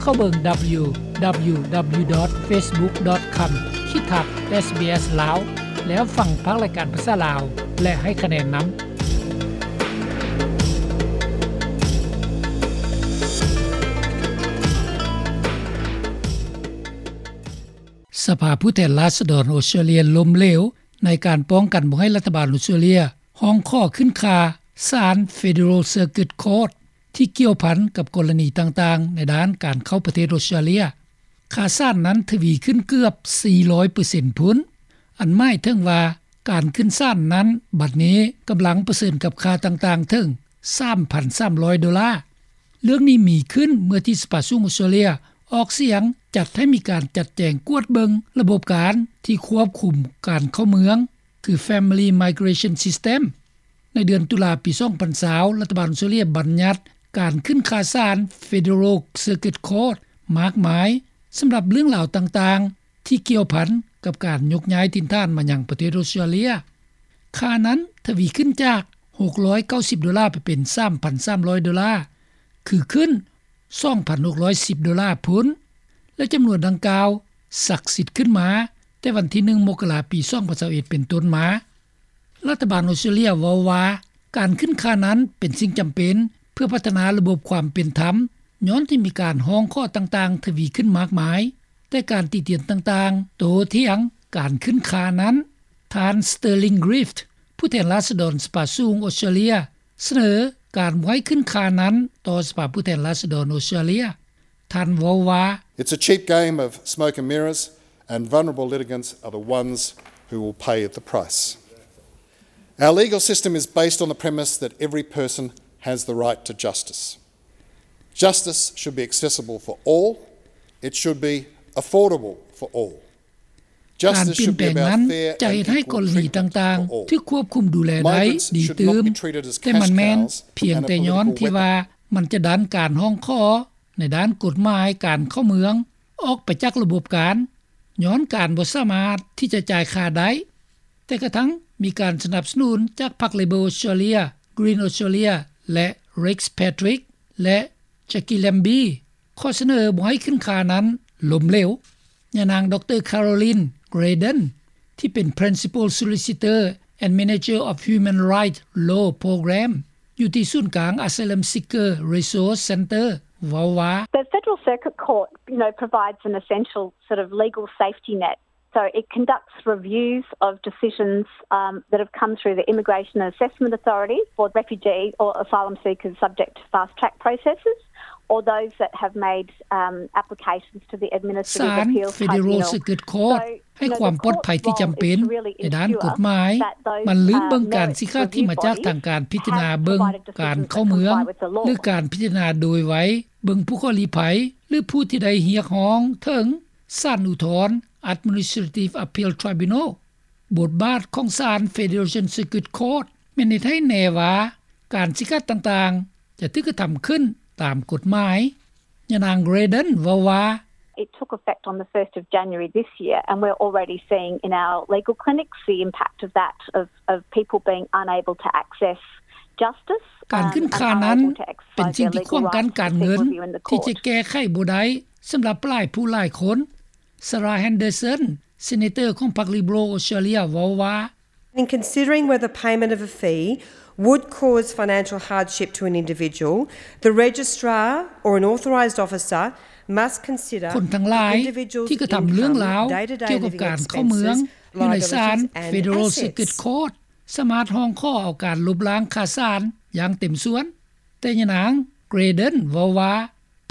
ເຂົ້າເບິ່ງ www.facebook.com/sbslao ແລ້ວຟັງພາກລາຍການພາສາລາວ ແລະ ໃຫ້ຄະແນນນຳ. ສະພາຜູ້ແທນລາຊະດອນອົດສະຕຣາເລຍລົ້ມເຫຼວ ໃນການປ້ອງກັນບໍ່ໃຫ້ລັດຖະບານອົດສະຕຣາເລຍຮ້ອງຂໍຂຶ້ນຄ່າສານ Federal Circuit Court ທີ່ກ່ຽວພັນກັບກໍລະນີຕ່າງໆ ໃນດ້ານການເຂົ້າປະເທດອົດສະຕຣາເລຍ. ຄ່າສານນັ້ນທະວີຂຶ້ນເກືອບສີ່ຮ້ອຍເປີເຊັນພຸ້ນ, ອັນໝາຍເຖິງວ່າການຂຶ້ນສານນັ້ນ ບັດນີ້ກຳລັງປະເຊີນກັບຄ່າຕ່າງໆເຖິງສາມພັນສາມຮ້ອຍໂດລາ. ເລື່ອງນີ້ມີຂຶ້ນເມື່ອທີ່ສະພາສູງອົດສະຕຣາເລຍອອກສຽງຈັດໃຫ້ມີການຈັດແຈງກວດເບິ່ງລະບົບການທີ່ຄວບຄຸມການເຂົ້າເມືອງ ຄື Family Migration System. ໃນເດືອນຕຸລາປີສອງພັນຊາວ ລັດຖະບານອົດສະຕຣາເລຍບັນຍັດການຂຶ້ນຄ່າສານ Federal Circuit Court ມາກມາຍ ສຳລັບເລື່ອງລາວຕ່າງໆ ທີ່ກ່ຽວພັນກັບການຍົກຍ້າຍຖິ່ນຖານມາຍັງປະເທດອົດສະຕຣາເລຍ. ຄ່ານັ້ນທະວີຂຶ້ນຈາກຫົກຮ້ອຍເກົ້າສິບໂດລາ ໄປເປັນສາມພັນສາມຮ້ອຍໂດລາ, ຄືຂຶ້ນສອງພັນຫົກຮ້ອຍສິບໂດລາພຸ້ນ ແລະ ຈຳນວນດັ່ງກ່າວສັກສິດຂຶ້ນມາແຕ່ວັນທີໜຶ່ງ ມົກກະລາ ປີສອງພັນຊາວເອັດ ເປັນຕົ້ນມາ. ລັດຖະບານອົດສະຕຣາເລຍເວົ້າວ່າ ການຂຶ້ນຄ່ານັ້ນເປັນສິ່ງຈຳເປັນເພື່ອພັດທະນາລະບົບຄວາມເປັນທຳ ຍ້ອນທີ່ມີການຮ້ອງຂໍຕ່າງໆທະວີຂຶ້ນມາກມາຍ, ແຕ່ການຕິຕຽນຕ່າງໆໂຕ້ຖຽງການຂຶ້ນຄ່ານັ້ນ. ທ່ານ Sterling Griffiths ຜູ້ແທນລາຊະດອນສະພາສູງອົດສະຕຣາເລຍ ສະເໜີການບໍ່ໃຫ້ຂຶ້ນຄ່ານັ້ນຕໍ່ສະພາຜູ້ແທນລາຊະດອນອົດສະຕຣາເລຍ. ທ່ານເວົ້າວ່າ It's a cheap game of smoke and mirrors, and vulnerable litigants are the ones who will pay the price. Our legal system is based on the premise that every person has the right to justice. Justice should be accessible for all. It should be affordable for all. ການປ່ຽນແປງນັ້ນຈະເຮັດໃຫ້ກໍລະນີຕ່າງໆຖືກຄວບຄຸມດູແລໄດ້ດີຕື່ມ, ແຕ່ມັນແມ່ນພຽງແຕ່ຍ້ອນທີ່ວ່າມັນຈະດັນການຮ້ອງຂໍໃນດ້ານກົດໝາຍການເຂົ້າເມືອງອອກໄປຈາກລະບົບການ ຍ້ອນການບໍ່ສາມາດທີ່ຈະຈ່າຍຄ່າໄດ້. ແຕ່ກະທັ່ງມີການສະໜັບສະໜູນຈາກພັກ Labor Australia, Green Australia ແລະ Rex Patrick ແລະ Jackie Lambie ຂໍ້ສະເໜີບໍ່ໃຫ້ຂຶ້ນຄ່ານັ້ນລົ້ມເຫຼວ. ຍານາງ ດຣ Carolyn Graden ທີ່ເປັນ Principal Solicitor and Manager of Human Rights Law Program ຢູ່ທີ່ສູນກາງ Asylum Seeker Resource Centre ເວົ້າວ່າ The Federal Circuit Court, you know, provides an essential sort of legal safety net. So it conducts reviews of decisions, um, that have come through the Immigration and Assessment Authority for refugee or asylum seekers subject to fast track processes, or those that have made, um, applications to the Administrative Appeals Tribunal. ສານ Federal Circuit Court ໃຫ້ຄວາມປອດໄພທີ່ຈຳເປັນໃນດ້ານກົດໝາຍ. ມັນລືມເບິ່ງການຊີ້ຂາດທີ່ມາຈາກທາງການພິຈາລະນາເບິ່ງການເຂົ້າເມືອງ ຫຼື ການພິຈາລະນາໂດຍໄວເບິ່ງຜູ້ຂໍລີ້ໄພ ຫຼື ຜູ້ທີ່ໄດ້ຮຽກຮ້ອງເຖິງ ສານອຸທອນ Administrative Appeal Tribunal. ບົດບາດຂອງສານ Federal Circuit Court ແມ່ນເຮັດໃຫ້ແນ່ວ່າການຊີ້ຂາດຕ່າງໆຈະຖືກກະທຳຂຶ້ນຕາມກົດໝາຍ. ຍານາງ Graden ເວົ້າວ່າ It took effect on the first of January this year, and we're already seeing in our legal clinics the impact of that, of, of people being unable to access justice. ການຂຶ້ນຄ່ານັ້ນເປັນສິ່ງທີ່ຂວາງກັ້ນການເງິນທີ່ຈະແກ້ໄຂບໍ່ໄດ້ສຳລັບຫຼາຍຜູ້ຫຼາຍຄົນ. Sarah Henderson, Senator ຂອງພັກ Liberal Australia ເວົ້າວ່າ In considering whether payment of a fee would cause financial hardship to an individual, the registrar or an authorised officer must consider the individual's income, day-to-day living expenses, liabilities and assets. ຄົນທັງຫຼາຍທີ່ກະທຳເລື່ອງລາວກ່ຽວກັບການເຂົ້າເມືອງຢູ່ໃນສານ Federal Circuit Court ສາມາດຮ້ອງຂໍເອົາການລົບລ້າງຄ່າສານຢ່າງເຕັມສ່ວນ, ແຕ່ຍານາງ Graden ເວົ້າວ່າ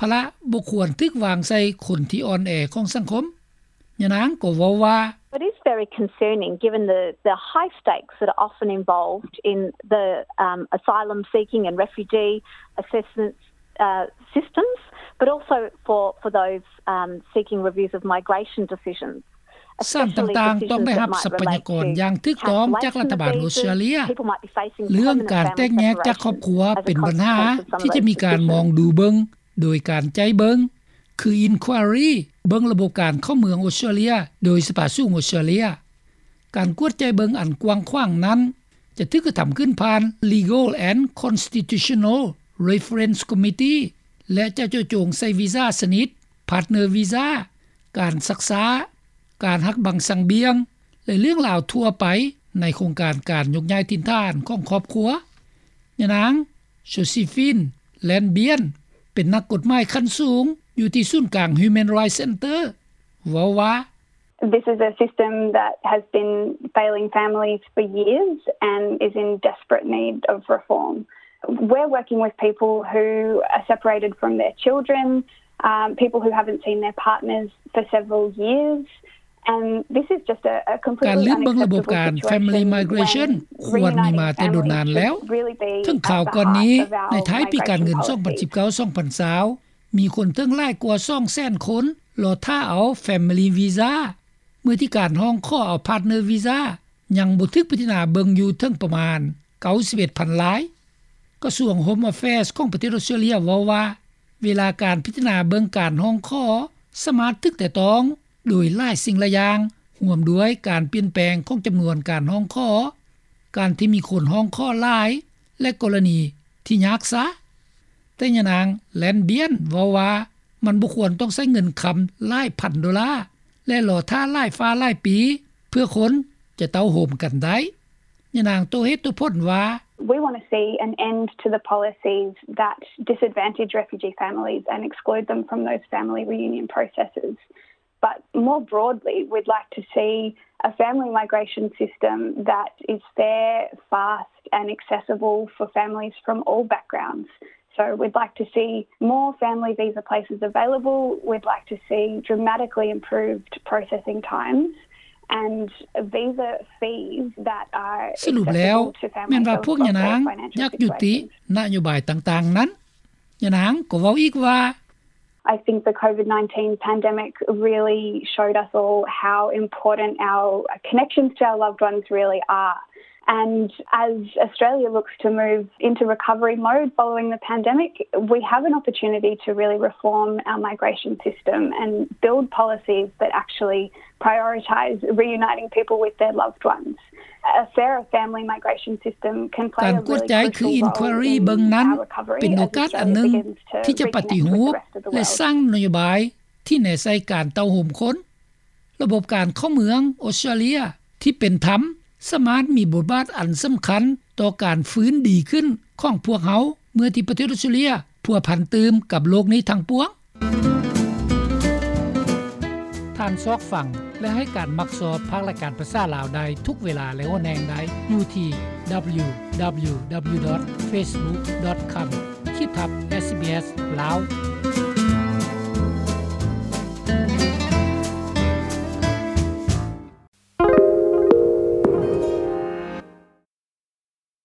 ພາລະບໍ່ຄວນຖືກວາງໃສ່ຄົນທີ່ອ່ອນແອຂອງສັງຄົມ. ຍານາງກໍເວົ້າວ່າ It is very concerning given the, the high stakes that are often involved in the, um, asylum seeking and refugee assistance, uh, systems, but also for, for those, um, seeking reviews of migration decisions. ສານຕ່າງໆຕ້ອງໄດ້ຮັບຊັບພະຍາກອນຢ່າງຖືກຕ້ອງຈາກລັດຖະບານອົດສະຕຣາເລຍ. ເລື່ອງການແຕກແຍກຈາກຄອບຄົວເປັນບັນຫາທີ່ຈະມີການມອງດູເບິ່ງໂດຍການໃຈເບິ່ງ ຄື Inquiry ເບິ່ງລະບົບການເຂົ້າເມືອງອົດສະຕຣາເລຍໂດຍສະພາສູງອົດສະຕຣາເລຍ. ການກວດໃຈເບິ່ງອັນກວ້າງຂວາງນັ້ນຈະຖືກກະທຳຂຶ້ນຜ່ານ Legal and Constitutional Reference Committee ແລະ ຈະເຈາະຈົງໃສ່ວີຊາຊະນິດ ພາດເນີວີຊາ, ການຊັກຊ້າ, ການຫັກບັງສັງບຽງ ແລະ ເລື່ອງລາວທົ່ວໄປ ໃນໂຄງການການຍົກຍ້າຍຖິ່ນຖານຂອງຄອບຄົວ. ຍານາງ ໂຈຊີຟິນ ແລນບຽນ ເປັນນັກກົດໝາຍຂັ້ນສູງ ຢູ່ທີ່ສູນກາງ Human Rights Center ເວົ້າວ່າ This is a system that has been failing families for years and is in desperate need of reform. We're working with people who are separated from their children, um, people who haven't seen their partners for several years, and this is just a, a completely unacceptable situation when reuniting families should really be about how our values are. ການລືມເບິ່ງລະບົບການ Family Migration ຄວນມີມາແຕ່ດົນນານແລ້ວ. ເຖິງຄາວກ່ອນນີ້ ໃນທ້າຍປີການເງິນ ສອງພັນສິບເກົ້າ ສອງພັນຊາວ ມີຄົນເຖິງຫຼາຍກວ່າ ສອງແສນຄົນ ລໍຖ້າເອົາ Family Visa ເມື່ອທີ່ການຮ້ອງຂໍເອົາ Partner Visa ຍັງບໍ່ຖືກພິຈາລະນາເບິ່ງຢູ່ເຖິງປະມານ ເກົ້າສິບເອັດພັນລາຍ. ກະຊວງ Home Affairs ຂອງປະເທດອອສເຕຣເລັຍເວົ້າວ່າ ເວລາການພິຈາລະນາເບິ່ງການຮ້ອງຂໍ ສາມາດຖືກແຕະຕ້ອງໂດຍຫຼາຍສິ່ງຫຼາຍຢ່າງ ຮ່ວມດ້ວຍການປ່ຽນແປງຂອງຈຳນວນການຮ້ອງຂໍ, ການທີ່ມີຄົນຮ້ອງຂໍຫຼາຍ ແລະ ກໍລະນີທີ່ຍາກຊ້າ. ແຕ່ຍານາງ ແລນບຽນ ເວົ້າວ່າ ມັນບໍ່ຄວນຕ້ອງໃຊ້ເງິນຄຳຫຼາຍພັນໂດລາ ແລະ ລໍຖ້າຫຼາຍຟ້າຫຼາຍປີ ເພື່ອຄົນຈະເຕົ້າໂຮມກັນໄດ້. ຍານາງໂຕ້ເຫດໂຕ້ຜົນວ່າ We want to see an end to the policies that disadvantage refugee families and exclude them from those family reunion processes. But more broadly, we'd like to see a family migration system that is fair, fast and accessible for families from all backgrounds. So we'd like to see more family visa places available. We'd like to see dramatically improved processing times and visa fees that are ສະຫຼຸບແລ້ວ ແມ່ນວ່າພວກຍານາງຢາກຢຸດຕິນະໂຍບາຍຕ່າງໆນັ້ນ. ຍານາງກໍເວົ້າອີກວ່າ I think the COVID nineteen pandemic really showed us all how important our connections to our loved ones really are. And as Australia looks to move into recovery mode following the pandemic, we have an opportunity to really reform our migration system and build policies that actually prioritise reuniting people with their loved ones. A fairer family migration system can play a really crucial role in our recovery as Australia begins to reconnect with its closest family. ການກວດໃຈຄື Inquiry ເບິ່ງນັ້ນ ເປັນໂອກາດອັນໜຶ່ງທີ່ຈະປະຕິຮູບ ແລະ ສ້າງນະໂຍບາຍທີ່ແນໃສ່ການເຕົ້າໂຮມຄົນ. ລະບົບການເຂົ້າເມືອງອອສເຕຣເລັຍທີ່ເປັນທຳ ສາມາດມີບົດບາດອັນສຳຄັນຕໍ່ການຟື້ນດີຂຶ້ນຂອງພວກເຮົາ ເມື່ອທີ່ປະເທດອອສເຕຣເລັຍພົວພັນຕື່ມກັບໂລກນີ້ທັງປວງ. ທ່ານຊອກຟັງ ແລະ ໃຫ້ການມັກຊອບພາກລາຍການພາສາລາວໄດ້ທຸກເວລາ ແລະ ຫົວແຫ່ງໃດ ຢູ່ທີ່ www.facebook.com/sbs lao.